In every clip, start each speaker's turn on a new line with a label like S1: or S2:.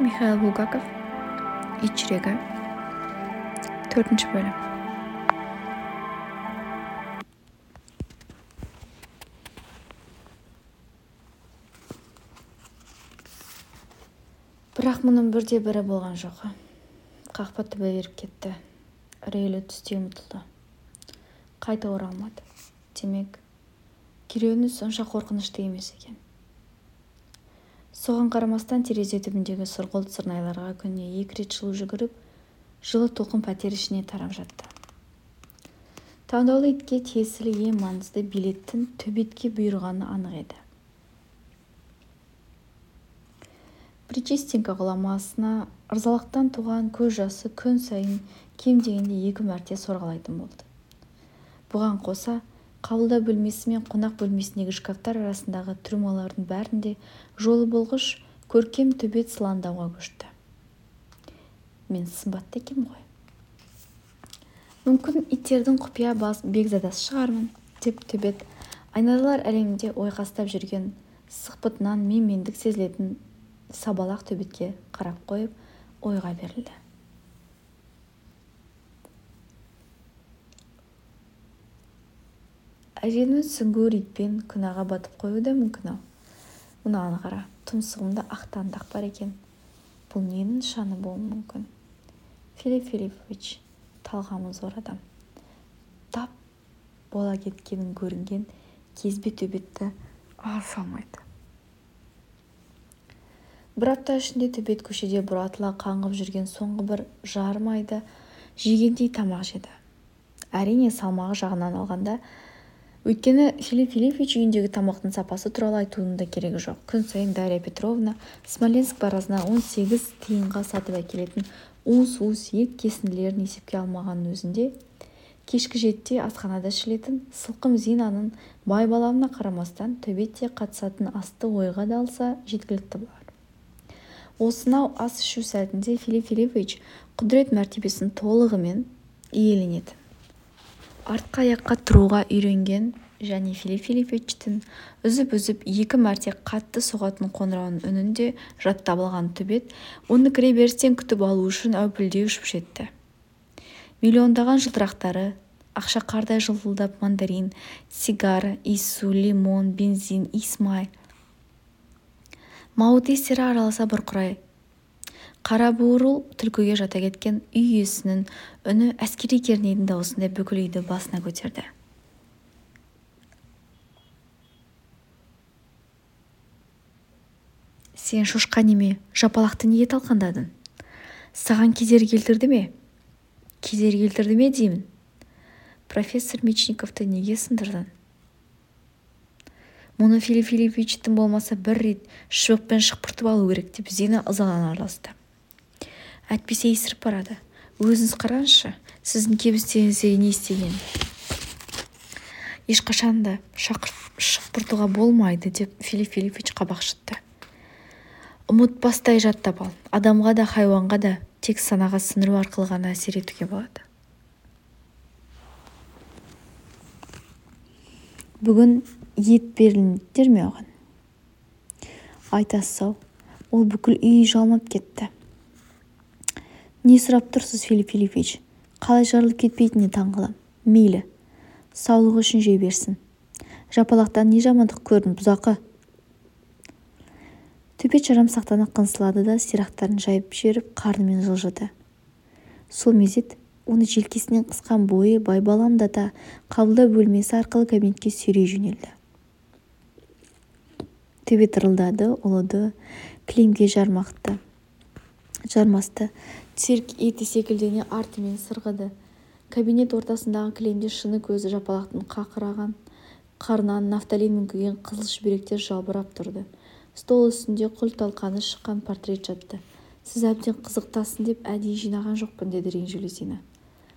S1: Михаил Булгаков, ит жүрегі, 4 бөлім. Бірақ мұның бірде-бірі болған жоқ. Қақпа түбі беріп кетті. Үрейлі түсте ұмытылды. Қайта оралмады. Демек, керуені сонша қорқынышты емес екен. Соған қарамастан терезе түбіндегі сұрғылт сырнайларға күніне 2 рет жылу жүгіріп, жылы толқын пәтер ішіне тарап жатты. Таңдаулы итке тиесілі ең маңызды билеттің төбетке бұйырғаны анық еді. Причистинка ғұламасына ырзалықтан туған көз жасы күн сайын кем дегенде 2 мәрте сорғалайтын болды. Бұған қоса, қабылдау бөлмесі мен қонақ бөлмесіндегі шкафтар арасындағы трюмалардың бәрінде жолы болғыш көркем төбет сылаңдауға көшті. Мен сымбатты екем ғой. Мүмкін иттердің құпия бекзадасы шығармын, деп төбет айналалар әлемінде ойқастап жүрген сықпытынан менмендік сезілетін сабалақ төбетке қарап қойып, ойға берілді. Әженің сүңгуір итпен күнәға батып қоюы да мүмкін-ау. Мынаны қара, тұмсығымда ақтандақ бар екен. Бұл ненің нышаны болуы мүмкін? Филипп Филиппович, талғамы зор адам. Тап бола кеткенін көрінген кезбе төбетті алса алмайды. Бір апта ішінде төбет көшеде бұратыла қаңғып жүрген соңғы бір жарым айда жегендей тамақ жеді. Әрине, салмағы жағынан алғанда, өйткені Филипп Филиппович үйіндегі тамақтың сапасы туралы айтудың да керегі жоқ. Күн сайын Дарья Петровна Смоленск барасына 18 тиынға сатып әкелетін уыс-уыс ет кесінділерін есепке алмағанның өзінде, кешкі 7-те асханада ішілетін сылқым Зинаның байбаламына қарамастан төбетте қатысатын асты ойға да алса жеткілікті болар. Осынау ас ішу сәтінде Филипп Филиппович құдірет мәртебесін толығымен иеленетін. Артқы аяққа тұруға үйренген және Филипп Филипповичтің үзіп-үзіп 2 мәрте қатты соғатын қоңырауының үнін де жаттап алған төбет, оны кіреберістен күтіп алу үшін әупілдей ұшып жетті. Миллиондаған жылтырақтары, ақша қардай жылтылдап мандарин, сигара, иіссу, лимон, бензин, иіс-май, мауыт иістері араласа бұрқырай. Қара буырыл түлкіге жата кеткен үй иесінің үні әскери кернейдің дауысында бүкіл үйді басына көтерді. Сен шошқа неме, жапалақты неге талқандадың? Саған кедергі келтірді ме? Кедергі келтірді ме деймін? Профессор Мечниковты неге сындырдың? Мұны Филипп Филипповичтің болмаса бір рет шыбықпен шықпыртып алу керек деп Зина ызалана араласты. Әтпесе есіріп барады. Өзіңіз қараңызшы, сіздің кебістеріңізде не істеген? Ешқашан да шықпыртуға болмайды, деп Филипп Филиппович қабақ шытты. Ұмытпастай жаттап ал. Адамға да, хайуанға да тек санаға сіңіру арқылы ғана әсер етуге болады. Бүгін ет беріліңдер ме оған? Айтасыз-ау, ол бүкіл үй жалмап кетті. Не сұрап тұрсыз, Филипп Филиппович? Қалай жарылып кетпейтініне таңғалам. Мейлі, саулығы үшін жей берсін. Жапалақтан не жамандық көрдің, бұзақы? Төбет жарамсақтанып қынсылады да сирақтарын жайып жіберіп қарнымен жылжыды. Сол мезет оны желкесінен қысқан бойы байбаламдата қабылдау бөлмесі арқылы кабинетке сүйрей жөнелді. Төбет ырылдады, ұлыды, кілемге жармасты. Цирк еті секілдене артымен сырғыды. Кабинет ортасындағы кілемде шыны көзі жапалақтың қақыраған қарнынан нафталин мүңкіген қызыл шүберектер жалбырап тұрды. Стол үстінде құл-талқаны шыққан портрет жатты. Сіз әбден қызықтасын деп әдейі жинаған жоқпын, деді ренжулі Зина.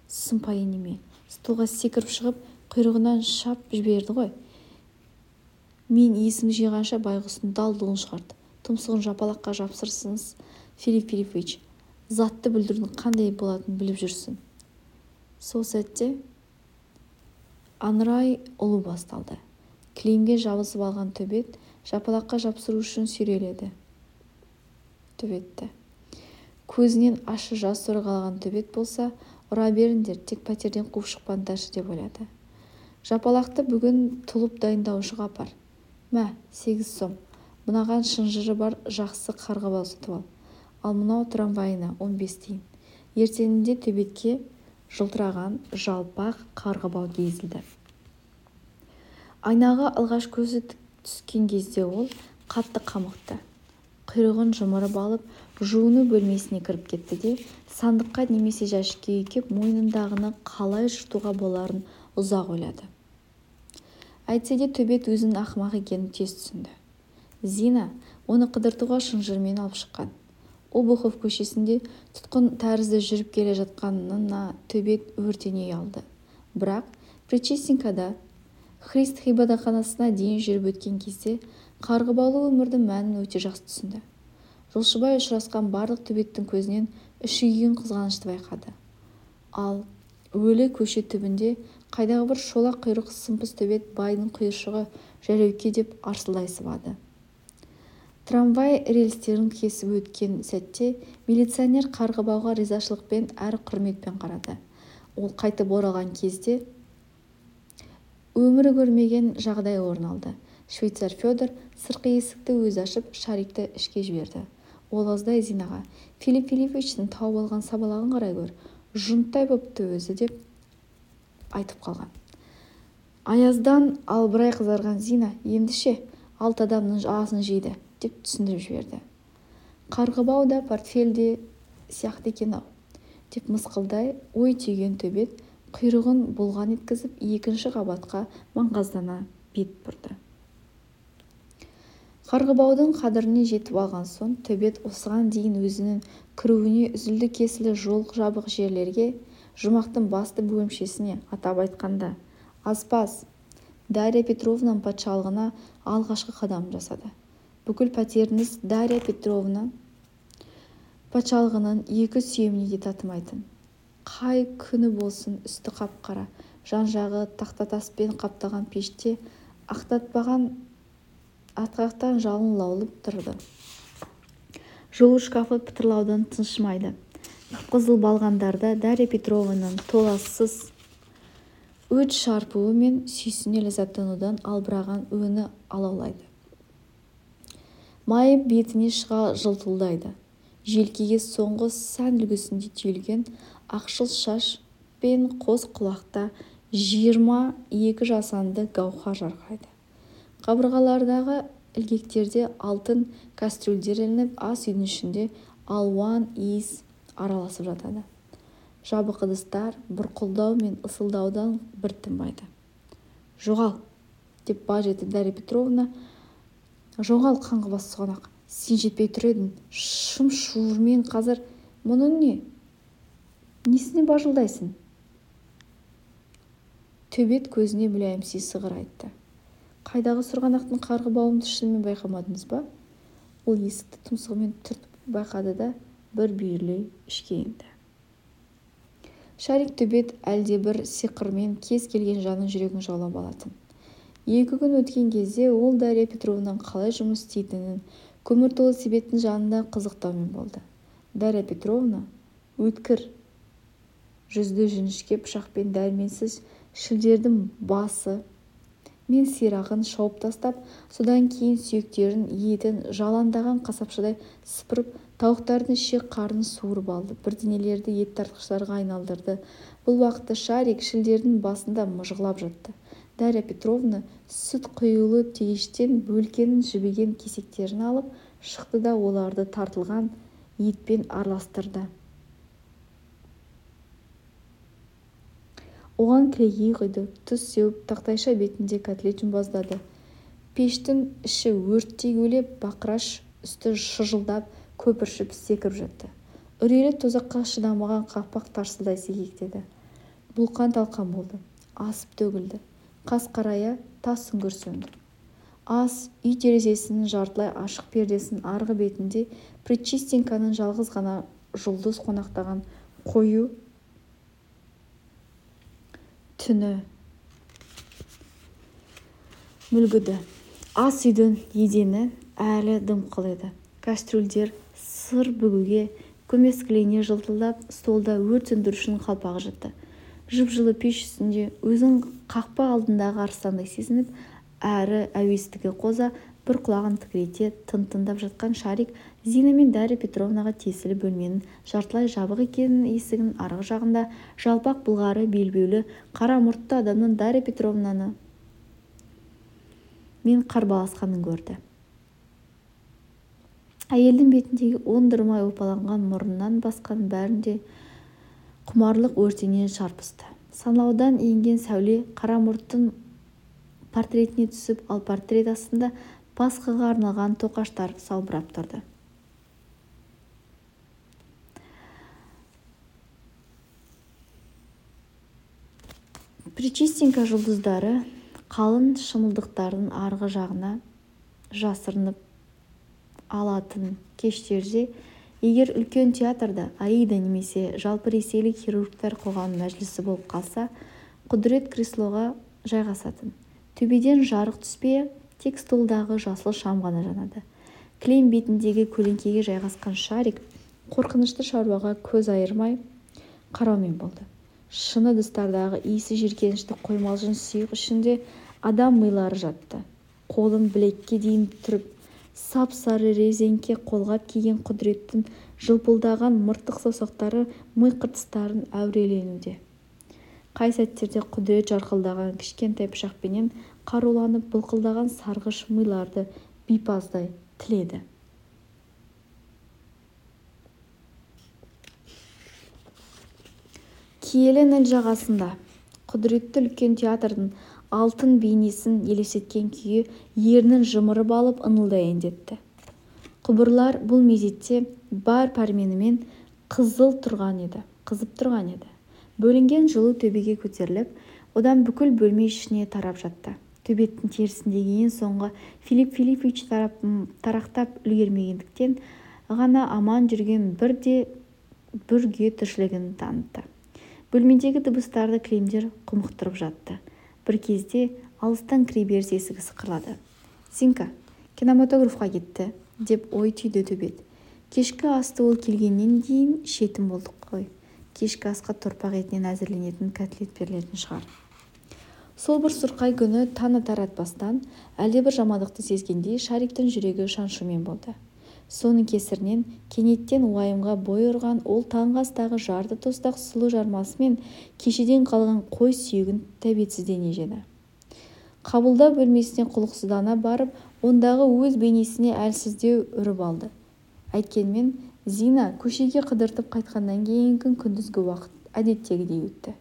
S1: Сұмпайы неме, столға секіріп шығып, құйрығынан шап жіберді ғой. Мен есім жиғанша байғұстың далдығын шығарды. Тұмсығын жапалаққа жапсырсыңыз, Филипп Филиппович, затты бүлдірдің қандай болатынын біліп жүрсін. Сол сәтте аңырай ұлу басталды. Кілемге жабысып алған төбет жапалаққа жапсыру үшін сүйреледі. Төбетті. Көзінен ащы жас сорғалаған төбет болса, ұра беріңдер, тек пәтерден қуып шықпаңдаршы деп ойлады. Жапалақты бүгін тұлып дайындаушыға апар. Мә, 8 сом. Мынаған шынжыры бар жақсы қарғыбау сатып ал. Ал мынау трамвайына 15 тиын. Ертеңінде төбетке жылтыраған жалпақ қарғыбау кезілді. Айнаға алғаш көзі түскен кезде ол қатты қамықты. Құйрығын жымырып алып, жуыну бөлмесіне кіріп кетті де, сандыққа немесе жәшікке үйкеп, мойнындағыны қалай жыртуға боларын ұзақ ойлады. Әйтсе де төбет өзінің ақымақ екенін тез түсінді. Зина оны қыдыртуға шынжырмен алып шыққан. Обухов көшесінде тұтқын тәрізді жүріп келе жатқанына төбет өртене ұялды. Бірақ Причистенкада Христ ғибадатханасына дейін жүріп өткен кезде қарғыбаулы өмірдің мәнін өте жақсы түсінді. Жолшыбай ұшырасқан барлық төбеттің көзінен үшігген қызғанышты байқады. Ал өлі көше түбінде қайдағы бір шолақ құйрық сымпыз төбет байдың құйыршығы жәреуке деп арсылдай сыбады. Трамвай рельстерін кесіп өткен сәтте милиционер қарғыбауға ризашылықпен әрі құрметпен қарады. Ол қайтып оралған кезде өмірі көрмеген жағдай орын алды. Швейцар Федор сыртқы есікті өзі ашып, Шарикті ішке жіберді. Ол аздай Зинаға: Филипп Филипповичтің тауып алған сабалағын қарай гөр, жұнттай бопты өзі деп айтып қалған. Аяздан албырай қызарған Зина ендіше 6 адамның асын жейді деп түсіндіріп жіберді. Қарғыбау да портфельде сияқты екен-ау деп мысқылдай ой түйген төбет құйрығын бұлған еткізіп екінші қабатқа маңғаздана бет бұрды. Қарғыбаудың қадіріне жетіп алған соң төбет осыған дейін өзінің кіруіне үзілді кесілі жол жабық жерлерге, жұмақтың басты бөлімшесіне, атап айтқанда аспаз Дарья Петровнаның патшалығына алғашқы қадам жасады. Бүкіл пәтеріңіз Дарья Петровна патшалығының екі сүйеміне де татымайтын. Қай күні болсын үсті қап-қара, жан-жағы тақтатаспен қаптаған пеште ақтатпаған атқақтан жалын лаулып тұрды. Жол шкафы пытырлаудан тыншымайды. Қызыл балғандарда Дарья Петровнаның толассыз өт шарпуы мен сүйсіне ләззаттанудан албыраған өңі алаулайды. Майып бетіне шыға жылтылдайды. Желкеге соңғы сән үлгісінде түйілген ақшыл шаш пен қос құлақта 22 жасанды гауһар жарқырайды. Қабырғалардағы ілгектерде алтын кастрюльдер ілініп, ас үйдің ішінде алуан иіс араласып жатады. Жабық ыдыстар бұрқылдау мен ысылдаудан бір тынбайды. Жоғал, деп баж етті Дарья Петровна. Жоғал, қаңғыбас сұғанақ, сен жетпей тұр едің, шым-шуырмен қазір. Мұның не? Несіне бажылдайсың? Төбет көзіне мүләйімси сығыр айтты. Қайдағы сырғанақтың қарғыбауымды шынымен байқамадыңыз ба? Ол есікті тұмсығымен түртіп байқады да бір бүйірлей ішке енді. Шарик төбет әлде бір сиқырмен кез келген жанның жүрегін жаулап алатын. 2 күн өткен кезде ол Дарья Петровнаның қалай жұмыс істейтінін, көмір толы себеттің жанында қызықтаумен болды. Дарья Петровна өткір жүзді жіңішке пышақпен дәрменсіз шілдердің басы мен сирағын шауып тастап, содан кейін сүйектерін, етін жаландаған қасапшыдай сыпырып, тауықтардың ішек қарнын суырып алды, бірдеңелерді ет тартқыштарға айналдырды. Бұл уақытта Шарик шілдердің басында мыжғылап жатты. Дарья Петровна сүт құйылы тегештен бөлкенің жібіген кесектерін алып шықты да оларды тартылған етпен араластырды. Оған кілегей құйды, тұз сеуіп, тақтайша бетінде котлет жұмбаздады. Пештің іші өрттей көлеп, бақыраш үсті шыжылдап, көпіршіп секіріп жатты. Үрейлі тозаққа шыдамаған қақпақ тарсылдай секектеді. Бұлқан талқан болды, асып төгілді. Қас қарая тас сүңгір сөнді. Ас үй терезесінің жартылай ашық пердесінің арғы бетінде Причистенканың жалғыз ғана жұлдыз қонақтаған қою түні мүлгіді. Ас үйдің едені әлі дымқыл еді. Кастрюльдер сыр бүгуге көмескілене жылтылдап столда өрт сөндірушінің қалпағы жатты. Жып-жылы пеш үстінде өзін қақпа алдындағы арыстандай сезініп, әрі әуестігі қоза бір құлағын тікірейте тың-тыңдап жатқан Шарик Зина мен Дарья Петровнаға тиесілі бөлменің жартылай жабық екенін, есігінің арғы жағында жалпақ былғары белбеулі қара мұртты адамның Дарья Петровнаны мен қарбаласқанын көрді. Әйелдің бетіндегі оңдырмай опаланған мұрнынан басқан бәрінде құмарлық өртенен шарпысты. Санаудан енген сәуле қара мұрттың портретіне түсіп, ал портрет астында Пасхаға арналған тоқаштар салбырап тұрды. Причистенька жұлдыздары қалың шымылдықтардың арғы жағына жасырынып алатын кештерде, егер үлкен театрда Аида немесе жалпы ресейлік хирургтар қоғам мәжілісі болып қалса, Құдірет креслоға жайғасатын. Төбеден жарық түспей, тек столдағы жасыл шам ғана жанады. Кілем бетіндегі көлеңкеге жайғасқан Шарик қорқынышты шаруаға көз айырмай қараумен болды. Шыны ыдыстардағы иісі жиіркенішті қоймалжың сұйық ішінде адам милары жатты. Қолын білекке дейін түріп, сап-сары резеңке қолғап киген Құдіреттің жылпылдаған мыртық саусақтары ми қыртыстарын әуреленуде. Қай сәттерде Құдірет жарқылдаған кішкентай пышақпенен қаруланып былқылдаған сарғыш миларды бипаздай тіледі. Киелі Ніл жағасында Құдіретті үлкен театрдың алтын бейнесін елестеткен күйі ернін жымырып алып ыңылдай әндетті. Құбырлар бұл мезетте бар пәрменімен қызып тұрған еді. Бөлінген жылу төбеге көтеріліп, одан бүкіл бөлме ішіне тарап жатты. Төбеттің терісіндегі ең соңғы Филипп Филиппович тарақтап үлгермегендіктен ғана аман жүрген бүрге тіршілігін танытты. Бөлмедегі дыбыстарды кілемдер құмықтырып жатты. Бір кезде алыстан кіреберіс есігі сықырлады. «Зинка, кинематографқа кетті», деп ой түйді Төбет. Кешкі асты ол келгеннен кейін шетін болдық қой. Кешкі асқа торпақ етінен әзірленетін котлет берілетін шығар. Сол бір сұрқай күні таңы таратпастан әлдебір жамандықты сезгендей Шариктің жүрегі шаншумен болды. Соның кесірінен кенеттен уайымға бой ұрған ол таңғы астағы жарты тостақ сұлу жармасымен кешеден қалған қой сүйегін тәбетсіздене жеді. Қабылдау бөлмесіне құлықсыздана барып, ондағы өз бейнесіне әлсіздеу үріп алды. Әйткенмен Зина көшеге қыдыртып қайтқаннан кейінгі күндізгі уақыт әдеттегідей өтті.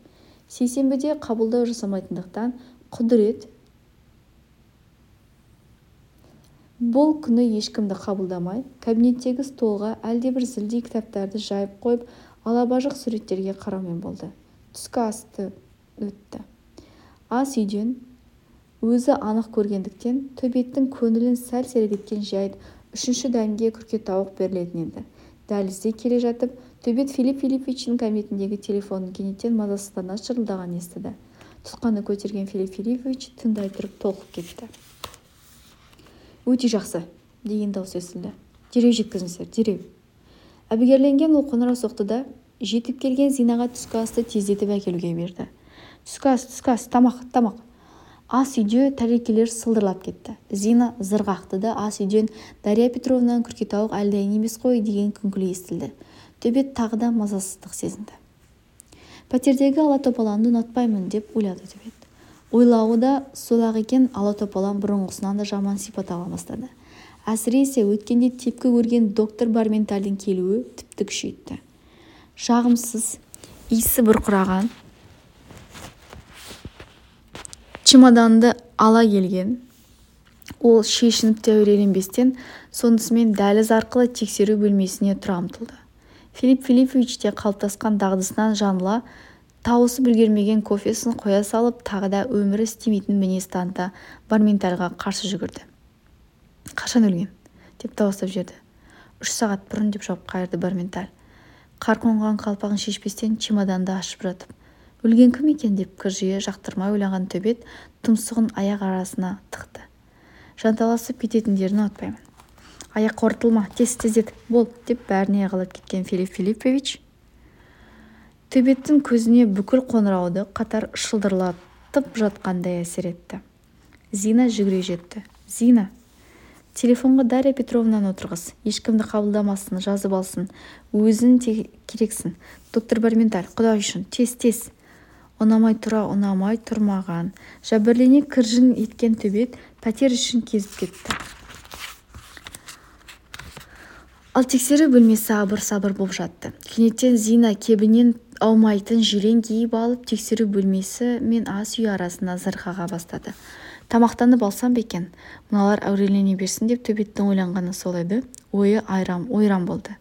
S1: Сейсенбіде қабылдау жасамайтындықтан Құдірет бұл күні ешкімді қабылдамай, кабинеттегі столға әлдебір зілдей кітаптарды жайып қойып, алабажық суреттерге қараумен болды. Түскі асты өтті. Ас үйден өзі анық көргендіктен Төбеттің көңілін сәл сергіткен жайт үшінші дәмге күркетауық берілетін еді. Дәлізде келе жатып, Төбет Филипп Филипповичтің кабинетіндегі телефонын кенеттен мазасыздана шырылдаған естіді. Тұтқаны көтерген Филипп Филиппович тыңдай тұрып толқып кетті. «Өте жақсы», деген дауыс естілді. «Дереу жеткізіңіздер, дереу». Әбігерленген ол қоңырау соқты да, жетіп келген Зинаға түскі асты тездетіп әкелуге берді. Түскі ас, тамақ. Ас үйде тәрелкелер сылдырлап кетті. Зина зырғақты да ас үйден Дарья Петровнаның күркетауық әлдайын емес қой деген күңкілі естілді. Төбет тағы да мазасыздық сезінді. Пәтердегі ала-топаланды ұнатпаймын деп ойлады Төбет. Ойлауы да сол-ақ екен, ала-топалан бұрынғысынан да жаман сипат ала бастады. Әсіресе өткенде тепкі көрген доктор Барментальдің келуі тіпті күшейтті. Жағымсыз, иісі бұрқыраған чемоданды ала келген. Ол шешініп те әуреленбестен сонысымен дәліз арқылы тексеру бөлмесіне тұра ұмтылды. Филипп Филиппович те қалыптасқан дағдысынан жаңыла тауысып үлгермеген кофесін қоя салып, тағы да өмірі істемейтін мінез таныта Барментальға қарсы жүгірді. «Қашан өлген?» деп дауыстап жіберді. 3 сағат бұрын деп жауап қайырды Барменталь. Қар қонған қалпағын шешпестен чемоданды ашып жатып. Өлген кім екен деп кіржие жақтырмай ойлаған Төбет тұмсығын аяқ арасына тықты. Жанталасып кететіндерін ұнатпаймын. аяқ ортылма, тездет, бол, деп бәріне қалап кеткен Филипп Филиппович төбеттің көзіне бүкіл қоңырауды қатар шылдырлатып жатқандай әсер етті. Зина жүгіре жетті. Зина, телефонға Дарья Петровнаны отырғыз, ешкімді қабылдамасын, жазып алсын, өзің керексің. Доктор Барменталь, құдай үшін, тез. Ұнамай тұрмаған. Жәбірлене кіржің еткен төбет пәтер үшін кезіп кетті. Ал тексеру бөлмесі абыр-сабыр боп жатты. Кенеттен Зина кебінен аумайтын жилен киіп алып, тексеру бөлмесі мен ас үй арасына зырғаға бастады. Тамақтанып алсам бекен, мыналар әурелене берсін деп төбеттің ойланғаны сол еді. Ойы ойран болды.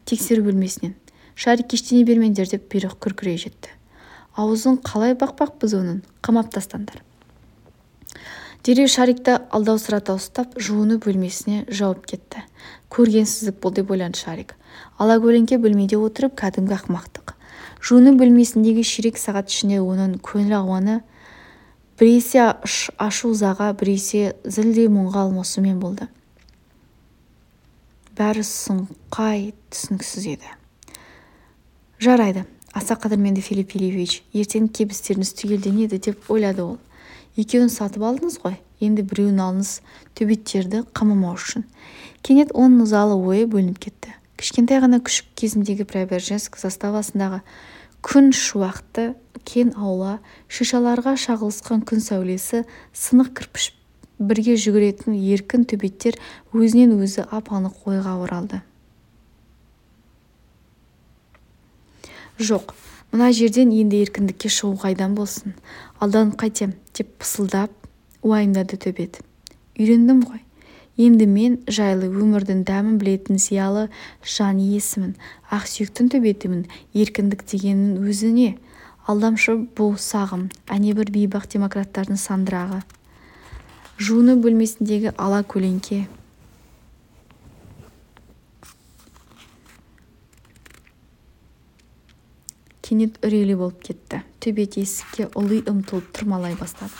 S1: Тексеру бөлмесінен Шарик кештене бермеңдер деп бұйрық күркірей жетті. Аузын қалай бақпақпыз оның, қамап тастаңдар. Дереу Шарикті алдаусырата ұстап, жуыну бөлмесіне жауып кетті. Көргенсіздік бұл деп ойланды Шарик. Алакөлеңке бөлмеде отырып кәдімгі ақмақтық. Жуыну бөлмесіндегі ширек сағат ішінде оның көңіл ауаны біресе ашу-ызаға, біресе зілдей мұңға алмасумен болды. Бәрі сұңқай, түсініксіз еді. Жарайды, аса қадірменді Филипп Филиппович, ертең кебістеріңіз түгелденеді деп ойлады ол. Екеуін сатып алдыңыз ғой, енді біреуін алыңыз төбеттерді қамамау үшін. Кенет оның ызалы ойы бөлініп кетті. Кішкентай ғана күшік кезіндегі Преображенск заставасындағы күн шуақты кен аула, шишаларға шағылысқан күн сәулесі, сынық кірпіш бірге жүгіретін еркін төбеттер өзінен өзі ап-анық ойға оралды. Жоқ, мына жерден енді еркіндікке шығу қайдан болсын, алданып қайтем деп пысылдап уайымдады төбет. Үйрендім ғой, енді мен жайлы өмірдің дәмін білетін зиялы жан иесімін, ақсүйектің төбетімін. Еркіндік дегеннің өзіне алдамшы бұл сағым, әнебір бейбақ демократтардың сандырағы. Жуыну бөлмесіндегі ала көлеңке кенет үрейлі болып кетті. Төбет есікке ұлы ұмтылып тұрмалай бастады.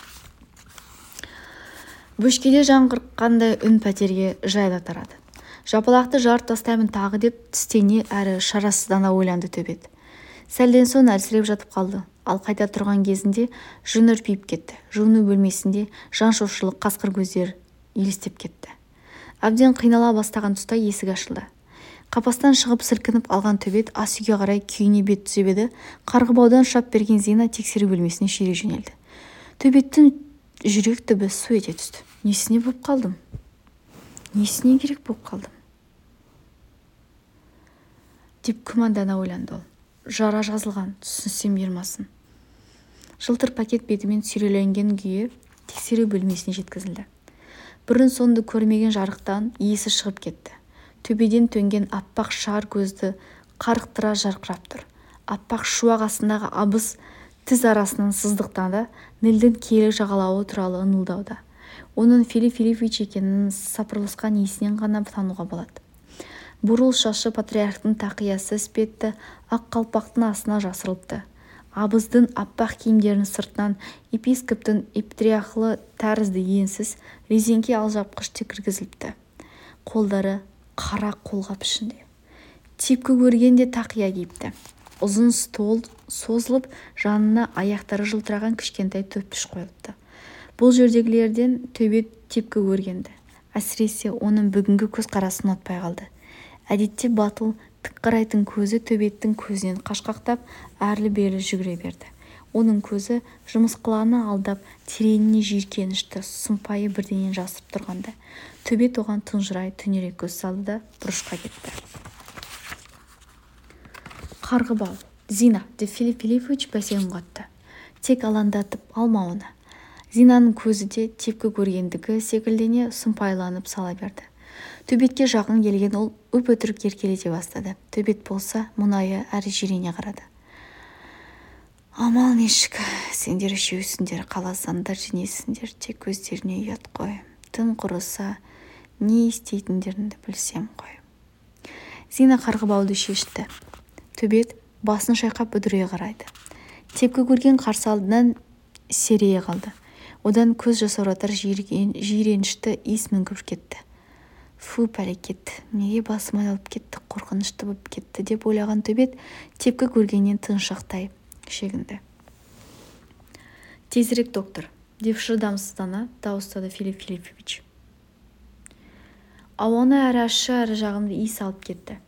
S1: Бөшкеде жаңғырыққандай үн пәтерге жайыла тарады. Жапалақты жарып тастаймын тағы деп тістене әрі шарасыздана ойланды төбет. Сәлден соң әлсіреп жатып қалды. Ал қайта тұрған кезінде жүн үрпиіп кетті. Жуыну бөлмесінде жан шошырлық қасқыр көздер елестеп кетті. Әбден қинала бастаған тұста есік ашылды. Қапастан шығып сілкініп алған төбет ас үйге қарай күйіне бет түзеп еді. Қарғыбаудан шап берген Зина тексеру бөлмесіне шире жөнелді. Төбеттің жүрек түбі су ете түсті. Несіне боп қалдым? Несіне керек боп қалдым? Деп күмәндана ойланды ол. Жара жазылған, түсінсем ермасын. Жылтыр пакет бетімен сүйреленген күйі тексеру бөлмесіне жеткізілді. Бұрын соңды көрмеген жарықтан иесі шығып кетті. Төбеден төнген аппақ шар көзді қарықтыра жарқырап тұр. Аппақ шуақ астындағы абыз тіс арасынан сыздықтанда Нілдің киелі жағалауы туралы ыңылдауда. Оның Филипп Филиппович екенін сапырылысқан есінен ғана тануға болады. Бурыл шашы патриархтың тақиясы іспетті ақ қалпақтың астына жасырылыпты. Абыздың аппақ киімдерінің сыртынан епископтың ептрияхлы тәрізді енсіз резеңке алжапқыш кіргізіліпті. Қолдары қара қолғап ішінде. Тепкі көргенде тақия киіпті. Ұзын стол созылып, жанына аяқтары жылтыраған кішкентай төппіш қойылыпты. Бұл жердегілерден төбет тепкі көргенді. Әсіресе оның бүгінгі көз қарасын ұнатпай қалды. Әдетте батыл, тік қарайтын көзі төбеттің көзінен қашқақтап, әрлі-берлі жүгіре берді. Оның көзі жымысқыланы алдап, тереңіне жиіркенішті, сұмпайы бірденен жасырып тұрғанда. Төбет оған тұнжырай түнерек көз салды да бұрышқа кетті. Қарғыбау, Зина, деп Филипп Филиппович бәсең қатты. Тек алаңдатып алма оны. Зинаның көзі де тепкі көргендігі секілдене сұмпайланып сала берді. Төбетке жақын келген ол өп-өтірік еркелете бастады. Төбет болса мұнайы әрі жирене қарады. Амал нешік, сендер үшеусіңдер, қаласаңдар женесіңдер, тек көздеріне ұят қой. Тым құрыса, не істейтіндеріңді білсем қой. Зина қарғыбауды шешті. Төбет басын шайқап үдірей қарайды. Тепкі көрген қарсы алдынан серейе қалды. Одан көз жасауратар жиренішті иіс мүңкіп кетті. Фу, пәлекет, неге басым айналып кетті, қорқынышты болып кетті деп ойлаған төбет тепкі көргеннен тыншақтай шегінді. Тезірек, доктор, деп шыдамсыздана дауыстады Филипп Филиппович. Ауаны әрі ащы әрі жағымды иіс алып кетті.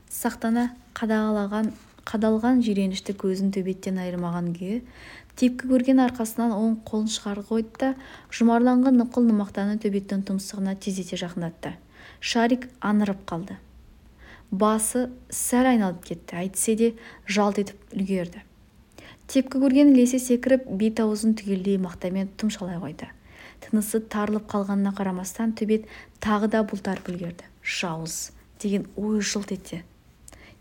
S1: Сақтана қадалған жиренішті көзін төбеттен айырмаған күйі тепкі көрген арқасынан оң қолын шығарып қойды да жұмарланған нұқыл нымақтаны төбеттің тұмсығына тездете жақындатты. Шарик анырып қалды. Басы сәл айналып кетті, әйтсе де жалт етіп үлгерді. Тепкі көрген ілесе секіріп, бет-аузын түгелдей мақтамен тұмшалай қойды. Тынысы тарылып қалғанына қарамастан төбет тағы да бұлтарып үлгерді. Жауыз деген ой жылт етті.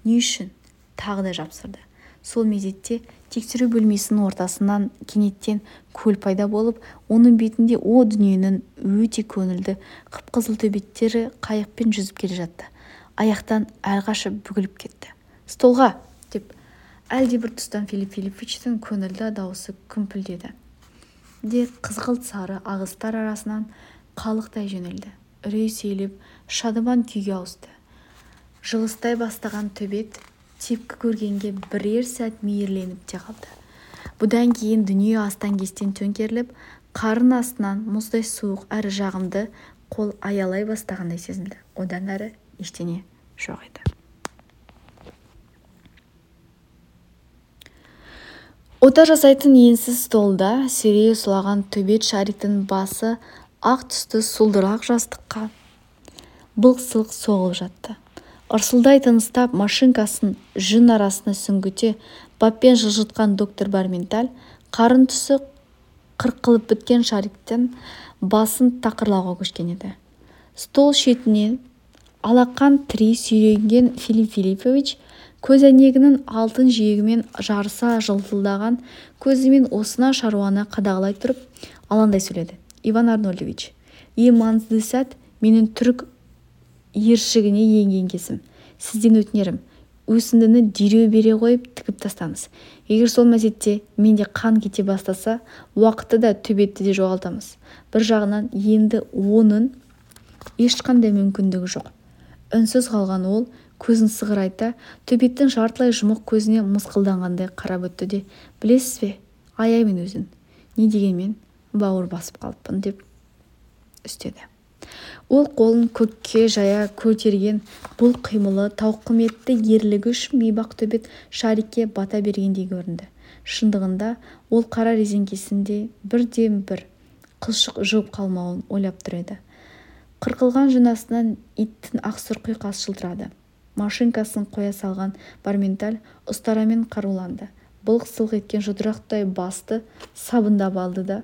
S1: Не үшін? Тағы да жапсырды. Сол мезетте тексеру бөлмесінің ортасынан кенеттен көл пайда болып, оның бетінде о дүниенің өте көңілді қып-қызыл төбеттері қайықпен жүзіп келе жатты. Аяқтан әрқашып бүгіліп кетті. «Столға!» деп әлдебір тұстан Филипп Филипповичтің көңілді дауысы күмпілдеді де қызғылт сары ағыстар арасынан қалықтай жөнелді. Үрей сейіліп, шадыман күйге ауысты. Жылыстай бастаған төбет тепкі көргенге бірер сәт мейірленіп те қалды. Бұдан кейін дүние астан-кестен төңкеріліп, қарын астынан мұздай суық әрі жағымды қол аялай бастағандай сезілді. Одан әрі ештеңе жоқ еді. Ота жасайтын енсіз столда серейе сұлаған төбет Шариктің басы ақ түсті сұлдырақ жастыққа былқ-сылқ соғылып жатты. Ырсылдай тыныстап, машинкасын жүн арасына сүңгіте баппен жылжытқан доктор Барменталь қарын түсі қырқылып біткен Шариктің басын тақырлауға көшкен еді. Стол шетінен алақан тірей сүйреген Филипп Филиппович көз әйнегінің алтын жиегімен жарыса жылтылдаған көзімен осына шаруаны қадағалай тұрып алаңдай сөйледі. «Иван Арнольдович, ең маңызды сәт менің түрік ершігіне енген кезім. Сізден өтінерім, өсіндіні дереу бере қойып тігіп тастаңыз. Егер сол мезетте менде қан кете бастаса, уақытты да төбетті де жоғалтамыз. Бір жағынан енді оның ешқандай мүмкіндігі жоқ». Үнсіз қалған ол көзін сығырайта төбеттің жартылай жұмық көзіне мысқылданғандай қарап өтті де: «Білесіз бе, аяймын өзін. Не дегенмен бауыр басып қалыппын», деп үстеді. Ол қолын көкке жая көтерген бұл қимылы тауқыметті ерлігі үшін бейбақ төбет Шарикке бата бергендей көрінді. Шындығында ол қара резеңкесінде бірден-бір қылшық жуып қалмауын ойлап тұр еді. Қырқылған жынасынан иттің ақсұр құйқасы жылтырады. Машинкасын қоя салған Барменталь ұстарамен қаруланды. Былқ-сылқ еткен жұдырықтай басты сабындап алды да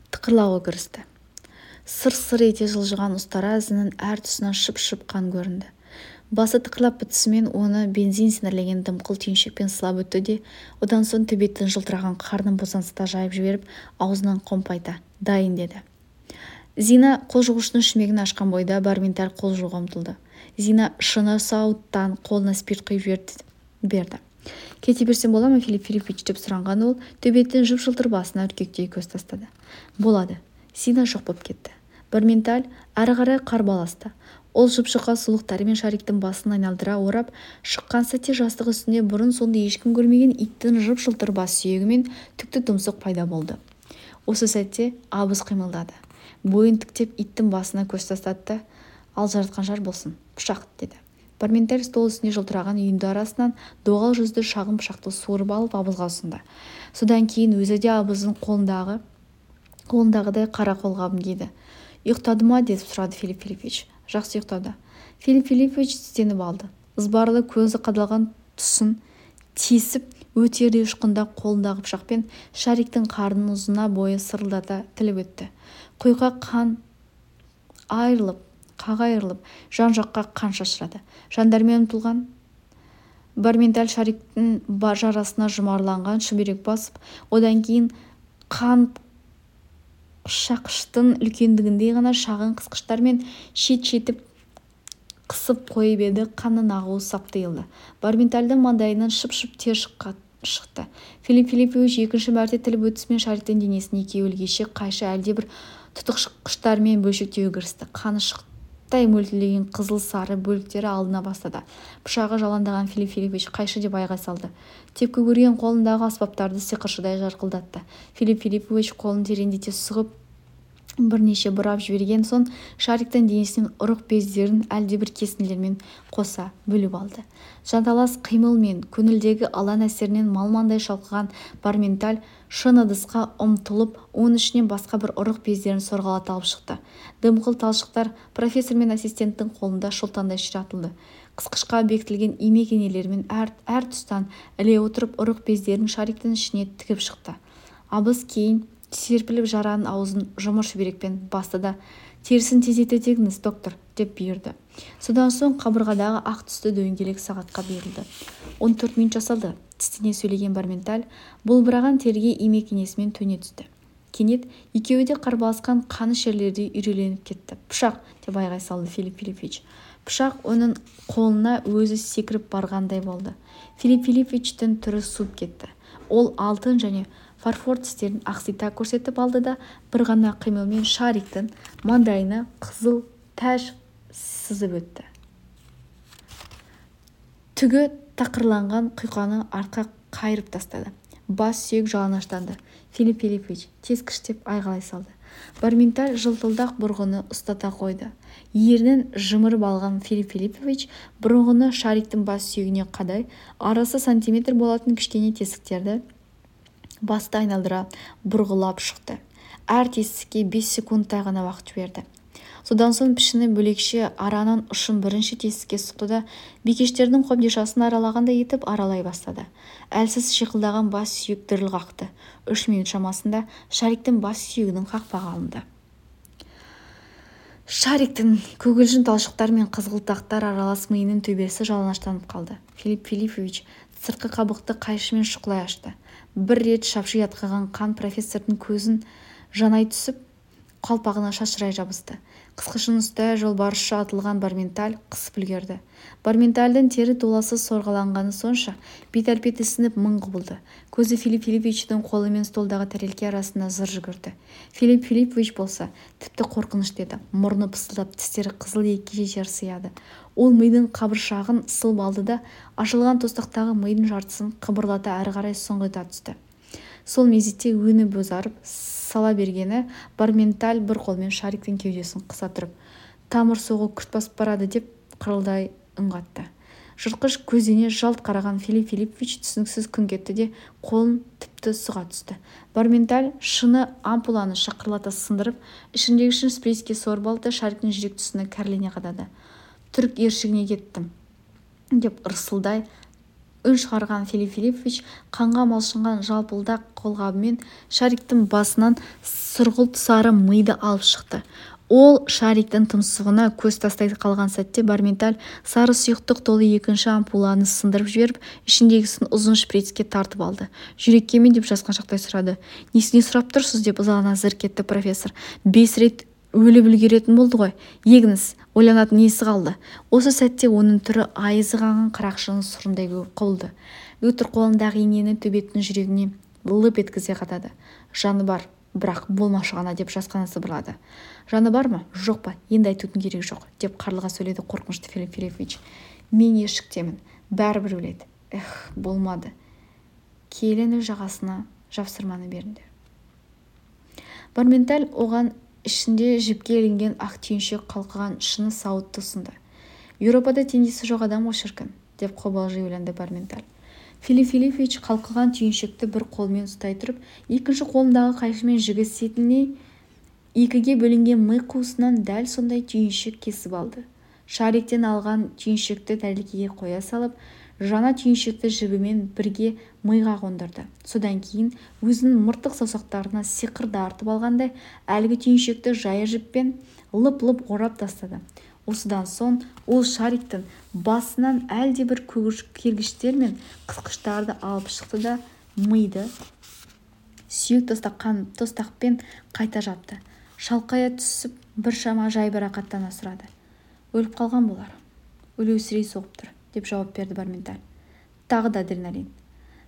S1: тықырлауға кірісті. Сыр-сыр ете жылжыған ұстара ізінің әр тұсынан шып-шып қан көрінді. Басы тықырлап бітісімен оны бензин сіңірлеген дымқыл түйіншекпен сылап өтті де, одан соң төбеттің жылтыраған қарнын босаңсыта жайып жіберіп, аузынан қомпайта: «Дайын», деді. Зина қол жуғыштың шүмегін ашқан бойда Барменталь қол жууға ұмтылды. Зина шыны сауыттан қолына спирт құйып берді. «Кете берсем бола ма, Филипп Филиппович?» деп сұраған ол төбеттің жып-жылтыр басына үркектей көз тастады. «Болады». Зина жоқ болып кетті. Барменталь әрі қарай қарбаласты. Ол жып-жұқа сұлықтарымен Шариктің басын айналдыра орап шыққан сәтте жастық үстінде бұрын-соңды ешкім көрмеген иттің жып-жылтыр бас сүйегі мен түкті тұмсық пайда болды. Осы сәтте абыз қимылдады. Бойын тіктеп иттің басына көз тастады. «Ал жаратқан жар болсын, пышақ», деді. Барменталь стол үстіне жылтыраған үйінді арасынан доғал жүзді шағын пышақты суырып алып абызға ұсынды. Содан кейін өзі де абыздың қолындағыдай қара қолғабын киді. «Ұйықтады ма?» деп сұрады Филипп Филиппович. «Жақсы ұйықтады». Филипп Филиппович тістеніп алды. Ызбарлы көзі қадалған тұсын тесіп өтердей ұшқында қолындағы пышақпен Шариктің қарнын ұзына бойы сырылдата тіліп өтті. Құйқа қағайырылып, жан-жаққа қан шашырады. Жандармен ұмтылған Барменталь Шариктің жарасына жұмарланған шүберек басып, одан кейін қан шақыштың үлкендігіндей ғана шағын қысқыштармен шет-шетіп қысып қойып еді. Қанның ағуы сап тыйылды. Барментальдің маңдайынан шып-шып тер шықты. Филипп Филиппович екінші мәрте тіліп өтісімен Шариктің денесін екеуі ілгеше қайшы әлдебір тұтықшықтармен бөлшектеуге кірісті. Қаны шықтай мөлтілдеген қызыл-сары бөліктері алдына бастады. Пышағы жалаңдаған Филипп Филиппович қайшы деп айғай салды. Тепкі көрген қолындағы аспаптарды сиқыршыдай жарқылдатты. Филипп Филиппович қолын тереңдете сұғып бірнеше бұрап жіберген соң Шариктің денесінен ұрық бездерін әлдебір кесінділермен қоса бөліп алды. Жанталас қимыл мен көңілдегі алан әсерінен малмандай шалқыған Барменталь шыны ыдысқа ұмтылып, оның ішінен басқа бір ұрық бездерін сорғалата алып шықты. Дымқыл талшықтар профессор мен ассистенттің қолында шолтандай ширатылды. Қысқышқа бекітілген имек инелерімен әр тұстан іле отырып ұрық бездерін Шариктің ішіне тігіп шықты. Абыз кейін серпіліп жараның аузын жұмыр шүберекпен басты да терісін тездете тегіңіз, доктор, деп бұйырды. Содан соң қабырғадағы ақ түсті дөңгелек сағатқа берілді. 14 минут жасалды. Тістене сөйлеген Барменталь бұлбыраған терге имек инесімен төне түсті. Кенет екеуі де қарбаласқан қаны шерлердей үйреленіп кетті. Пышақ, деп айғай салды Филипп Филиппович. Пышақ оның қолына өзі секіріп барғандай болды. Филипп Филипповичтің түрі суып кетті. Ол алтын және фарфор тістерін ақсита көрсетіп алды да бір ғана қимылмен Шариктің маңдайына қызыл тәж сызып өтті. Түгі тақырланған құйқаны артқа қайырып тастады. Бас сүйек жалаңаштанды. Филипп Филиппович тескіштеп айғайлай салды. Барменталь жылтылдақ бұрғыны ұстата қойды. Ернін жымырып алған Филипп Филиппович бұрғыны Шариктің бас сүйегіне қадай, арасы сантиметр болатын кішкене тесіктерді басты айналдыра бұрғылап шықты. Әр тесікке 5 секундтай ғана уақыт жіберді. Содан соң пішіні бөлекше араның ұшын бірінші тесікке сұқты да бикештердің қобдишасын аралағандай етіп аралай бастады. Әлсіз шиқылдаған бас сүйек діріл қақты. 3 минут шамасында Шариктің бас сүйегінің қақпағы алынды. Шариктің көгілжін талшықтар мен қызғылтақтар аралас миының төбесі жалаңаштанып қалды. Филипп Филиппович сыртқы қабықты қайшымен шұқылай ашты. Бір рет шапши атқаған қан профессордың көзін жанай түсіп, қалпағына шашырай жабысты. Қысқышын ұстая жолбарысша атылған Барменталь қысып үлгерді. Барментальдың тері толасы сорғаланғаны сонша бет-әлпеті сынып мың құбылды. Көзі Филипп Филипповичтің қолы мен столдағы тәрелке арасында зыр жүгірді. Филипп Филиппович болса тіпті қорқынышты еді. Мұрны пысылдап, тістері қызыл екіге жер сыяды. Ол мидың қабыршағын сылып алды да ашылған тостақтағы мидың жартысын қыбырлата әрі қарай сұңғыта түсті. Сол мезетте өңі бозарып сала бергені Барменталь бір қолмен Шариктің кеудесін қыса тұрып, тамыр соғу күрт басып барады деп қырылдай үн қатты. Жыртқыш көзіне жалт қараған Филипп Филиппович түсініксіз күңк етті де қолын тіпті сұға түсті. Барменталь шыны ампуланы шақырлата сындырып, ішіндегі шын спрейске сорып алды, Шариктің жүрек тұсына кәрлене қадады. Түрік ершігіне кеттім, деп ырсылдай үн шығарған Филипп Филиппович қанға малшынған жалпылдақ қолғабымен Шариктің басынан сұрғылт сары миды алып шықты. Ол Шариктің тұмсығына көз тастай қалған сәтте Барменталь сары сұйықтық толы екінші ампуланы сындырып жіберіп, ішіндегісін ұзын шприцке тартып алды. Жүрекке ме деп жасқаншақтай сұрады. Несіне сұрап тұрсыз деп ызалана зырқ етті профессор. 5 рет өліп үлгеретін болды ғой. Егіңіз, ойланатын несі қалды? Осы сәтте оның түрі айызы қанған қарақшының сұрындай құбылды. Лютер қолындағы инені төбеттің жүрегіне лып еткізе қадады. Жаны бар, бірақ болмашы ғана деп жасқана сыбырлады. Жаны бар ма, жоқ па, енді айтудың керек жоқ, деп қарлыға сөйледі қорқынышты Филипп Филиппович. Мен ешіктемін, бәрібір өледі. Болмады. Келіні жағасына жапсырманы беріңдер. Барменталь оған ішінде жіпке ілінген ақ түйіншек қалқыған шыны сауытты ұсынды. Еуропада теңдесі жоқ адам ғой шіркін, деп қобалжи ойланды Барменталь. Филипп Филиппович қалқыған түйіншекті бір қолмен ұстай тұрып, екінші қолындағы қайшымен жігі сетінен екіге бөлінген ми қуысынан дәл сондай түйіншек кесіп алды. Шариктен алған түйіншекті тәрелкеге қоя салып, жаңа түйіншекті жібімен бірге миға қондырды. Содан кейін өзінің мыртық саусақтарына сиқырды артып алғандай әлгі түйіншекті жая жіппен лып-лып орап тастады. Осыдан соң ол Шариктің басынан әлдебір кергіштер мен қысқыштарды алып шықты да миды сүйек тостақпен қайта жапты. Шалқая түсіп біршама жайбарақаттана сұрады. Өліп қалған болар. Өлеусірей соғып тұр, деп жауап берді Барменталь. Тағы да адреналин.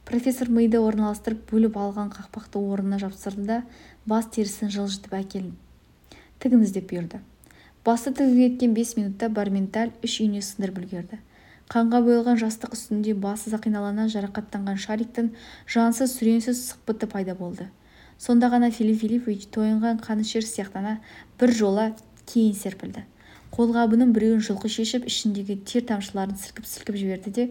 S1: Профессор миды орналастырып бөліп алған қақпақты орнына жапсырды да бас терісін жылжытып әкелін тігіңіз деп бұйырды. Басты тігуге кеткен 5 минутта Барменталь 3 үйіне сындырып үлгерді. Қанға боялған жастық үстінде басы сақиналана жарақаттанған Шариктің жансыз сүреңсіз сықпыты пайда болды. Сонда ғана Филипп Филиппович тойынған қанішер сияқтана бір жола кейін серпілді. Қолғабының біреуін жұлқы шешіп, ішіндегі тер тамшыларын сілкіп-сілкіп жіберді де,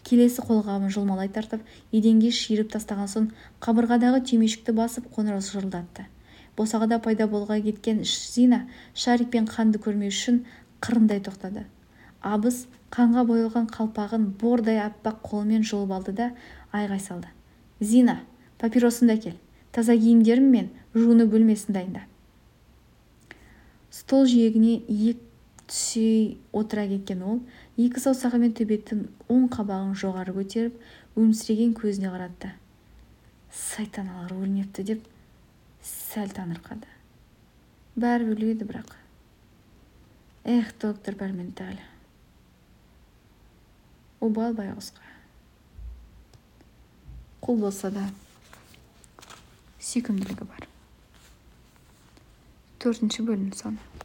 S1: келесі қолғабын жұлмалай тартып, еденге шиырып тастаған соң қабырғадағы түймешікті басып қоңырау шырылдатты. Босағада пайда болға кеткен Зина Шарик пен қанды көрмеу үшін қырындай тоқтады. Абыз қанға боялған қалпағын бордай аппақ қолымен жұлып алды да айғай салды. Зина, папиросыңды әкел, таза киімдерім мен жуыны бөлмесін дайында. Стол жиегіне иек түсе отыра кеткен ол, екі саусағымен төбеттің оң қабағын жоғары көтеріп, өмсіреген көзіне қаратты. Сайтаналар өлмепті деп сәл таңырқады. Бәрі өледі бірақ. Эх, доктор Барменталь. Обал байғұсқа. Қол болса да сүйкімділігі бар. 4-ші бөлім соны.